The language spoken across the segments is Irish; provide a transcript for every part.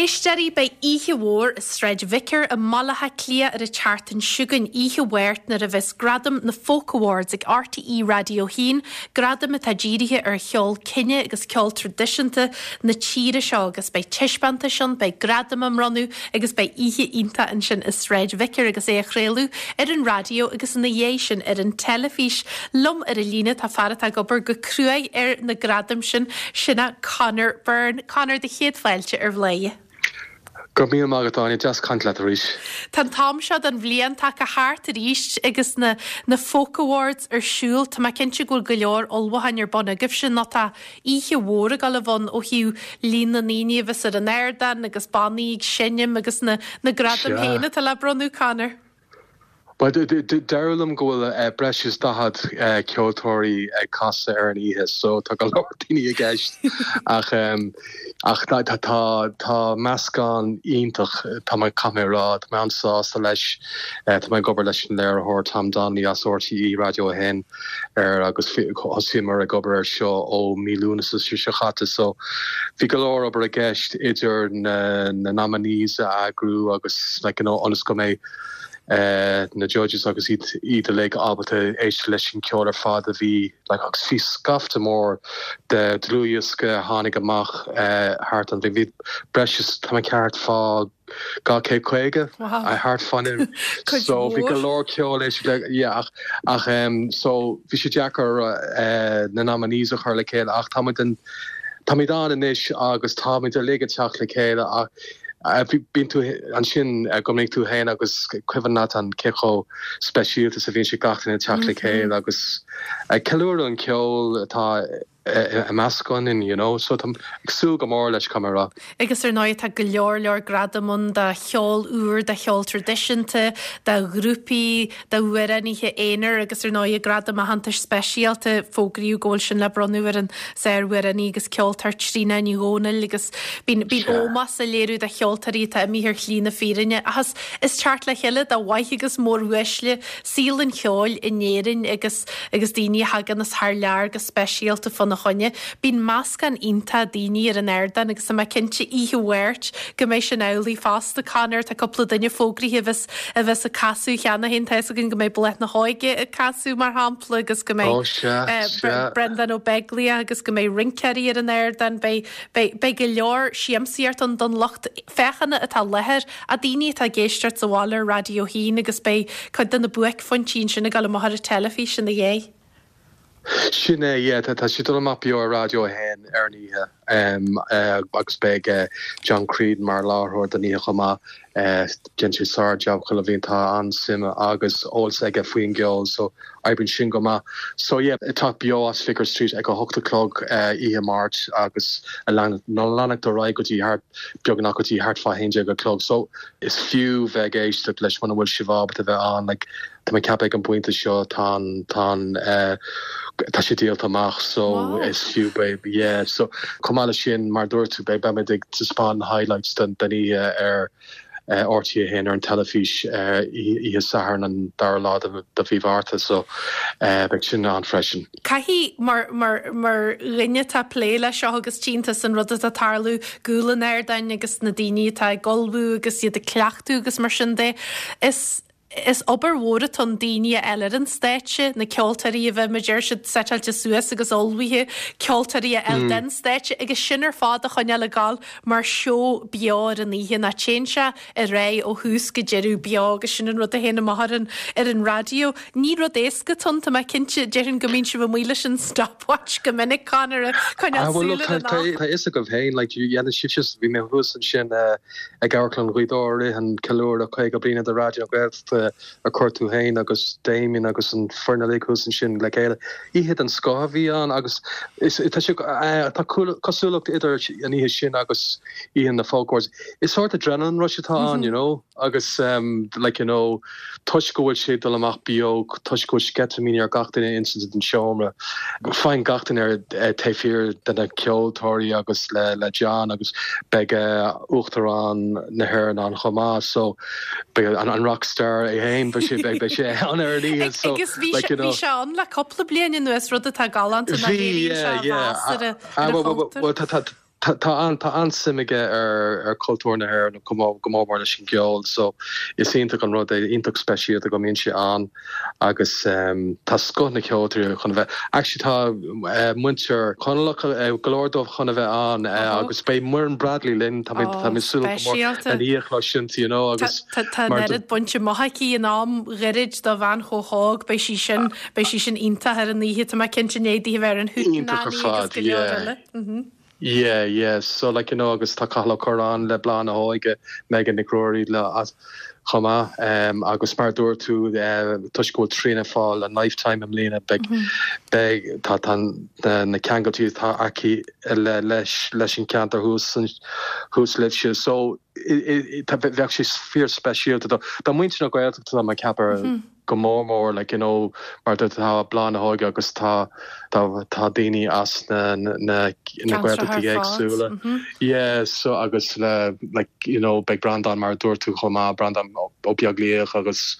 éisteoirí, beidh oíche mhór i Sráid Vicar i mBaile Átha Cliath ar an tseachtain seo chugainn, oíche Mháirt, nuair a bheas Gradaim na Folk Awards ag RTÉ Raidió 1, gradaim atá dírithe ar cheol cine agus ceol traidisiúnta na tíre seo agus beidh taispeántais ann, beidh gradaim á mbronnadh agus beidh oíche iontach ansin i Sráid Vicar agus é á chraoladh ar an raidió agus ina dhiaidh sin ar an teilifís. Liom ar an líne tá fear atá ag obair go cruaidh ar na gradaim sin, sin é Conor Byrne. Conor, do chéad fáilte ar Bhladhaire. Go raibh míle maith agat, Áine. Deas caint leat arís. Tá an t-am seo den bhliain tagtha thart arís agus na na Folk Awards ar siúl. Tá mé cinnte go bhfuil go leor ullmhúcháin ar bun agaibhse nó tá oíche mhór ag dul a bheith ann ó thaobh líon na ndaoine a bheas ar an ardán agus bannaí ag seinm agus na na gradaim féin atá le bronnadh, Conor. Bhuel, deireadh liom go bhfuil breis is 40 ceoltóirí ag casadh ar an oíche so tá go leor daoine i gceist ach ach tá tá meascán iontach tá mé caithfidh mé a rá, tá mé an-sásta leis. Tá mé ag obair leis an léiritheoir Tom Donnelly as RTÉ Raidió 1 air agus thosaíomar ag obair air seo ó mí Lúnasa seo chaite so bhí go leor obair i gceist idir na na nominees a eagrú agus like you know ionas go mbeidh na judges agus iad iad uilig ábalta éisteacht leis an ceol ar fad a bhí like agus bhí scaifte mór de dlúthdhiosca a tháinig amach thart an bhí breis is tá mé ceart fá 250 thart fá so bhí go leor ceol éisteacht le yeah ach ach so bhí sé deacair na nominees a chur le chéile ach táimid an táimid ann anois agus táimid uilig ag teacht le chéile ach Bíonn tú ansin go minic tú féin agus cuimhin leat an cé chomh speisialta is a bhíonn sé gach duine ag teacht le chéile agus ag ceiliúradh an ceol atá i measc againn, you know. So táim ag súil go mór leis, caithfidh mé a rá. Agus ar ndóigh tá go leor leor gradam ann do cheol úr, do cheol traidisiúnta, do ghrúpaí, d'amhránaithe aonair agus ar ndóigh gradam aitheantais speisialta, fógraíodh go bhfuil sin le bronnadh ar an sár-amhránaí agus ceoltóir Tríona Ní Dhomhnaill agus bíonn bíonn ómós á léiriú do cheoltóirí atá imithe ar shlí na fírinne ach is is teacht le chéile do mhaithe agus móruaisle saol an cheoil in Éirinn agus agus daoine a thagann as thar lear go speisialta fána choinne. Bíonn meascán iontach daoine ar an ardán agus tá mé cinnte oíche Mháirt go mbeidh sin amhlaidh fosta. Conor, tá cúpla duine fógraithe a bheas a bheas ag casadh cheana féin. Tá fhios againn go mbeidh Bláth na hÓige ag casadh, mar shampla, agus go mbeidh Breandán Ó Beaglaoich agus go mbeidh rinceoirí ar an ardán. Beidh, beidh, beidh go leor siamsaíocht ann don lucht féachana atá i láthair, a daoine atá ag éisteacht sa bhaile ar Raidió 1 agus beidh cuid de na buaicphointí ansin ag dul amach ar an teilifís ina dhiaidh. Sin é, yeah, tá sé ag dul amach beo ar Raidió 1 ar an oíche agus beidh John Creedon mar láithreoir don oíche chomh maith. Déanann sé sár-jab chuile bhliain, tá an-suim agus eolas aige faoin gceol so oibríonn sin go maith. So yeah, ag teacht beo as Vicar Street ag a hocht a chlog oíche Máirt agus ag leanacht ar aghaidh go dtí thart, beagnach go dtí thart fá 11 a chlog. So is fiú bheith ag éisteacht leis muna bhfuil sibh ábalta bheith ann like, Tá mé ag ceapadh ag an bpointe seo tá an, tá an, tá sé díolta amach so is fiú beidh, yeah so chomh maith leis sin mar a dúirt tú beidh, beimid ag taispeáint na highlights den, den oíche ar RTÉ 1 ar an teilifís oíche Sathairn an dara lá de, de mhí Mhárta so beidh sin ann freisin. Caithfidh, mar, mar, mar dhuine atá ag plé leis seo agus tchíonn tusa an rud atá ag tarlú i gcúl an ardáin agus na daoine atá ag ullmhú agus iad ag cleachtadh agus mar sin de, is, Is obair mhór atá ann daoine a fháil ar an stáitse, na ceoltóirí a bheith, mar a deir siad, seiteáilte suas agus ullmhaithe, ceoltóirí a fháil den stáitse agus sin ar fad a choinneáil ag gabháil mar seó beo ar an oíche. Nó téann sé ar aghaidh ó thús go deireadh beo agus sin an rud a théann amach ar an ar an raidió. Ní rud éasca atá ann, tá mé cinnte, déarfainn go mbíonn sibh amuigh leis an stopwatch go minic, Conor, ag coinneáil súil ar an am. Tá a fhios agaibh féin, like, dhéanann sibhse, bhí mé thuas ansin, Ag Amharclann Ghaoth Dobhair i rith an ceiliúradh 50 bliana de Raidió na Gaeltachta a chuir tú féin agus Damien agus an foireann uilig thuas ansin le chéile. Oíche den scoth a bhí ann agus is tá sé tá cosúlacht idir an oíche sin agus oíche na Folk Awards. Is sórt adrenaline rush atá ann, you know, agus like you know toisc go bhfuil sé ag dul amach beo, toisc go bhfuil sceitimíní ar gach duine ins an seomra, faigheann gach duine ar taobh thiar de na ceoltóirí agus le John agus beidh Uachtarán na hÉireann ann chomh maith so beidh an rockstar é féin, beidh sé beidh sé ann ar an oíche so Agus bhí like you know. Bhí sé ann le cúpla bliain anuas, rud atá galánta ná léiríonn sé a mheas ar a chultúr. Tá an-suim aige ar chultúr na hÉireann, go mór mór leis an gceol, so is iontach an rud é, iontach speisialta go mbíonn sé ann agus tá scoth na ceoltóirí chun a bheith, actually tá muintir Chonallach, go leor dóibh chun a bheith ann agus beidh Muireann Bradley linn, tá mé ag súil go mór lena í a chloisint, you know, agus Tá an oiread bainte amach aici in am ghairid do bhean chomh hóg, beidh sí sin, beidh sí sin iontach ar an oíche, tá mé cinnte i ndiaidh di a bheith ar an Iontach ar Hootenanny agus fad, go leor yeah. eile. Yeah, yeah, so like you know agus tá Cathal Ó Curráin le Bláth na hÓige, Megan Nic Ruairí le as chomh maith um, agus mar a dúirt tú uh, toisc go bhfuil Tríona ag fáil an Lifetime i mbliana beidh beidh tá tá na, na ceangailtí atá aici le leis leis an ceantar thuas thuas libhse so i, i, tá bheadh sé fíor speisialta do do muintir na Gaeltachta tá mé ag ceapadh go mór mór like you know mar tá Bláth na hÓige agus tá tá tá daoine as na na na Gaeltachtaí éagsúla yeah so agus le like you know beidh Breandán mar a dúirt tú chomh maith Breandán Ó Beaglaoich agus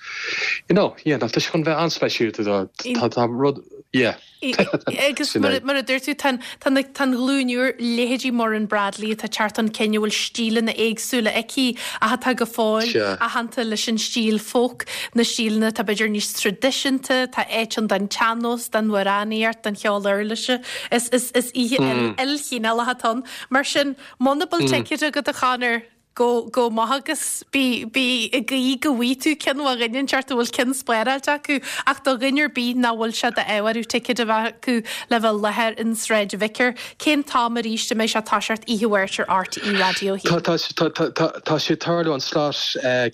you know yeah tá sé chun bheith an-speisialta tá tá rud yeah. Agus mar a dúirt tú, tá an ghlúin úr, leithéidí Muireann Bradley atá ag teacht chun cinn a bhfuil stíleanna éagsúla aici ach atá go fóill aitheanta leis an stíl folk, na stíleanna atá b'fhéidir níos traidisiúnta, tá áit ann don tsean-nós, don amhránaíocht, don cheol uirlise. Is oíche ilchineálach atá ann. Mar sin, muna bhfuil ticéad agat a Chonor, Go, go maith agus bí, bí ag guí go bhfaighidh tú ceann ó dhuine inteacht a bhfuil ceann spáráilte acu ach do dhuine ar bith nach bhfuil sé d'ádh orthu ticéad a bheith acu le bheith i láthair in Sráid Vicar, cén t-am arís a mbeidh sé ag toiseacht oíche Mháirt ar RTÉ Raidió 1? Tá, tá, tá, tá, tá, tá sé ag tarlú an slot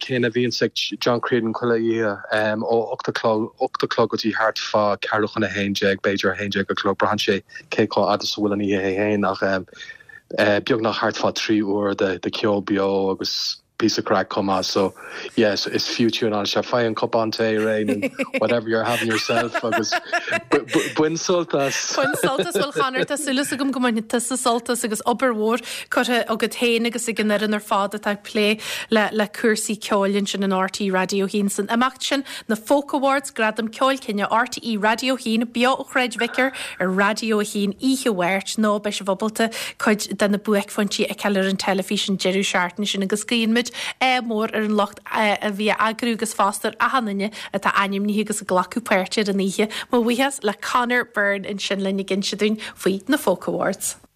céanna a bhíonns ag John Creedon chuile oíche ó 8 a chlog, 8 a chlog go dtí thart fá ceathrú chun a haon déag, b'fhéidir 11 a chlog, braitheann sé cé chomh fhada is a bhfuil an oíche é féin ach beagnach thart fá 3 uair de cheol beo agus píosa craic chomh maith so yeah is fiú tiúnáil isteach. Faigh an cupán tae réidh nó whatever you're having yourself agus bain sult as. Bain sult as, bhuel a Chonor tá súil agam go mbainfidh tusa sult as agus obair mhór curtha agat féin agus ag an fhoireann ar fad atá ag plé le le cúrsaí ceoil ansin in RTÉ Raidió 1 san imeacht sin Na Folk Awards, Gradam Ceoil Cine RTÉ Raidió 1, beo ó Shráid Vicar ar Raidió 1 oíche Mháirt, nó beidh sibh ábalta cuid de na buaicphointí a fheiceáil ar an teilifís an deireadh seachtaine sin agus guíonn muid ádh mór ar an lucht a bhí á eagrú agus fosta ar achan duine atá ainmnithe agus ag glacadh páirte ar an oíche. Mo bhuíochas le Conor Byrne ansin linn ag inse dúinn faoi na Folk Awards.